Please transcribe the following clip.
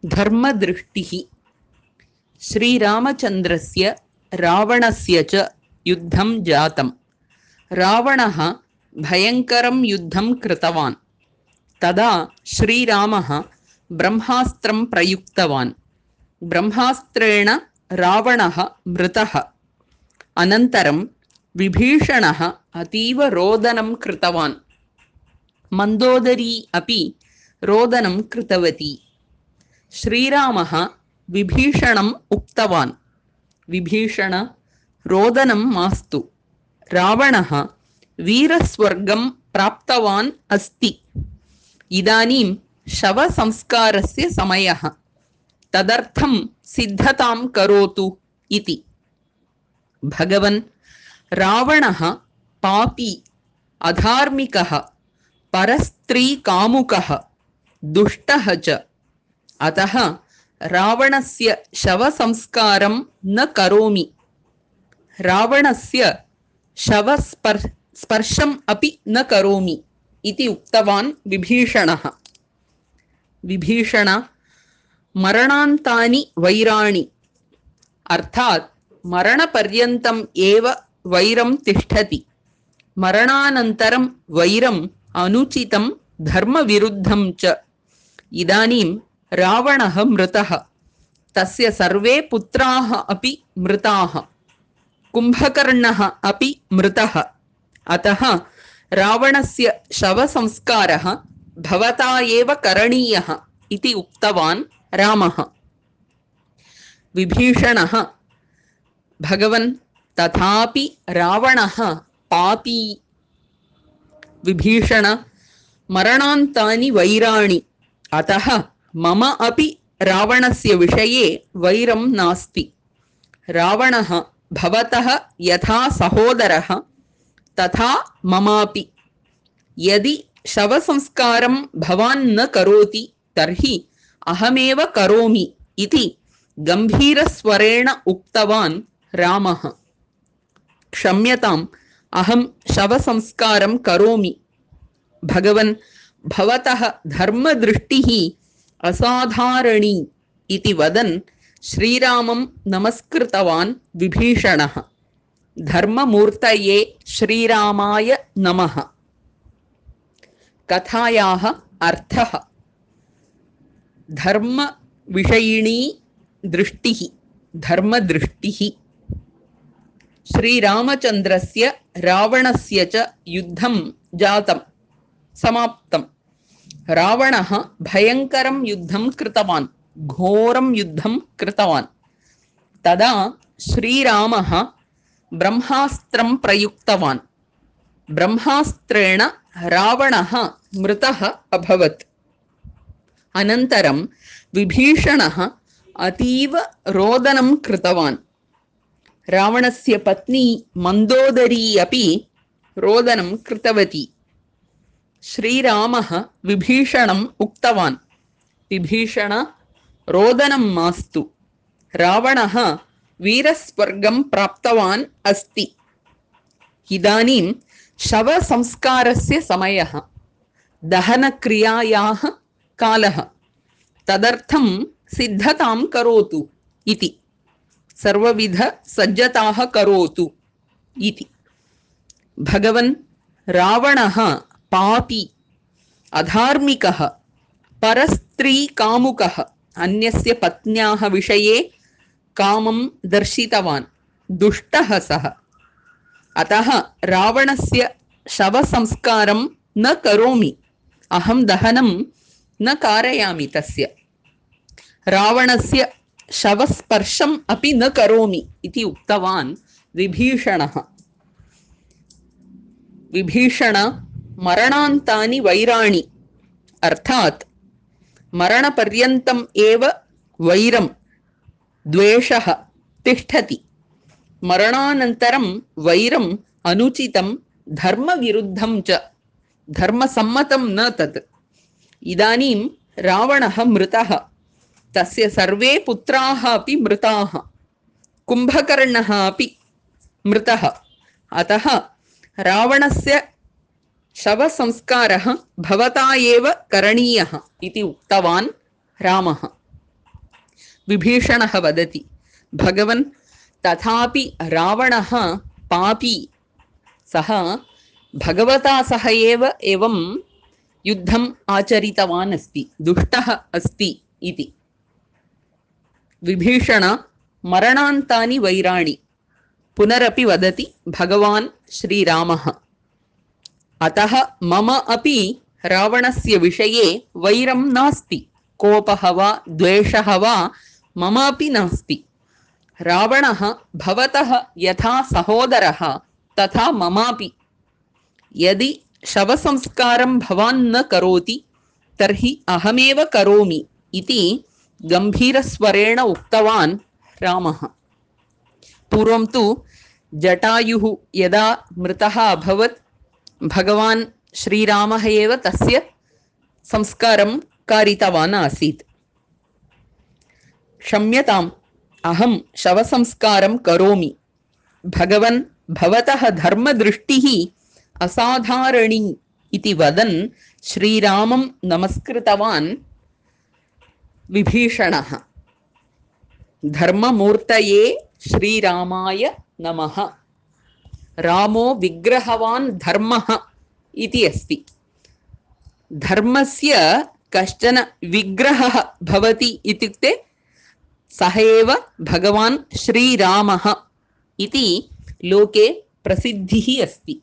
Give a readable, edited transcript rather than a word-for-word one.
धर्मदृष्टिः। श्रीरामचन्द्रस्य रावणस्य च युद्धं जातं। रावणः भयङ्करं युद्धं कृतवान्। तदा श्रीरामः ब्रह्मास्त्रं प्रयुक्तवान्। ब्रह्मास्त्रेण रावणः मृतः। अनन्तरं विभीषणः अतीव रोदनं कृतवान्। मन्दोदरी अपि रोदनं कृतवती। श्रीरामः विभीषणम् उक्तवान्, विभीषण, रोदनं मास्तु। रावणः वीरस्वर्गं प्राप्तवान् अस्ति। इदानीं शवसंस्कारस्य समयः। तदर्थं सिद्धतां करोतु इति। भगवन्, रावणः पापी, अधार्मिकः, परस्त्रीकामुकः, दुष्टः च। अतः रावणस्य शवसंस्कारं न करोमि। रावणस्य शवस्पर्शम् अपि न करोमि इति उक्तवान् विभीषणः। विभीषण, मरणान्तानि वैराणि, अर्थात् मरणपर्यन्तम् एव वैरं तिष्ठति। मरणानन्तरं वैरम् अनुचितं धर्मविरुद्धं च। इदानीं रावणः मृतः। तस्य सर्वे पुत्राः अपि मृताः। कुम्भकर्णः अपि मृतः। अतः रावणस्य शवसंस्कारः भवता एव करणीयः इति उक्तवान् रामः। विभीषणः, भगवन्, तथापि रावणः पापी। विभीषण, मरणान्तानि वैराणि, अतः मम अपि रावणस्य विषये वैरं नास्ति। रावणः भवतः यथा सहोदरः तथा ममापि। यदि शवसंस्कारं भवान् न करोति तर्हि अहमेव करोमि इति गम्भीरस्वरेण उक्तवान् रामः। क्षम्यताम्, अहं शवसंस्कारं करोमि। भगवन्, भवतः धर्मदृष्टिः असाधारणी इति वदन् श्रीरामं नमस्कृतवान् विभीषणः। धर्ममूर्तये श्रीरामाय नमः। कथायाः अर्थः। धर्मविषयिणी दृष्टिः, धर्मदृष्टिः। श्रीरामचन्द्रस्य रावणस्य च युद्धं जातं, समाप्तम्। रावणः भयङ्करं युद्धं कृतवान्, घोरं युद्धं कृतवान्। तदा श्रीरामः ब्रह्मास्त्रं प्रयुक्तवान्। ब्रह्मास्त्रेण रावणः मृतः अभवत्। अनन्तरं विभीषणः अतीव रोदनं कृतवान्। रावणस्य पत्नी मन्दोदरी अपि रोदनं कृतवती। श्रीरामः विभीषणम् उक्तवान्, विभीषण, रोदनं मास्तु। रावणः वीरस्वर्गं प्राप्तवान् अस्ति। इदानीं शवसंस्कारस्य समयः, दहनक्रियायाः कालः। तदर्थं सिद्धतां करोतु इति। सर्वविधसज्जताः करोतु इति। भगवन्, रावणः पापी, अधार्मिकः, परस्त्रीकामुकः, अन्यस्य पत्न्याः विषये कामं दर्शितवान्, दुष्टः सः। अतः रावणस्य शवसंस्कारं न करोमि। अहं दहनं न कारयामि तस्य। रावणस्य शवस्पर्शम् अपि न करोमि इति उक्तवान् विभीषणः। विभीषण, मरणान्तानि वैराणि, अर्थात् मरणपर्यन्तम् एव वैरं, द्वेषः तिष्ठति। मरणानन्तरं वैरम् अनुचितं धर्मविरुद्धं च, धर्मसम्मतं न तत्। इदानीं रावणः मृतः। तस्य सर्वे पुत्राः अपि मृताः। कुम्भकर्णः अपि मृतः। अतः रावणस्य शवसंस्कारः भवता एव करणीयः इति उक्तवान् रामः। विभीषणः वदति भगवन् तथापि रावणः पापी सः भगवता सह एव एवं युद्धम् आचरितवान् अस्ति दुष्टः अस्ति इति विभीषण मरणान्तानि वैराणि पुनरपि वदति भगवान् श्रीरामः अतः मम अपि रावणस्य विषये वैरं नास्ति कोपः वा द्वेषः वा मम अपि नास्ति रावणः भवतः यथा सहोदरः तथा ममापि यदि शवसंस्कारं भवान् न करोति तर्हि अहमेव करोमि इति गंभीरस्वरेण उक्तवान् रामः पूर्वं तु जटायुः यदा मृतः अभवत् भगवान् श्रीरामः एव तस्य संस्कारं कारितवान् आसीत् क्षम्यताम् अहं शवसंस्कारं करोमि भगवन् भवतः धर्मदृष्टिः असाधारणी इति वदन् श्रीरामं नमस्कृतवान् विभीषणः धर्ममूर्तये श्रीरामाय नमः रामो विग्रहवान् धर्मः इति अस्ति धर्मस्य कश्चन विग्रहः भवति इत्युक्ते सः एव भगवान् श्रीरामः इति लोके प्रसिद्धिः अस्ति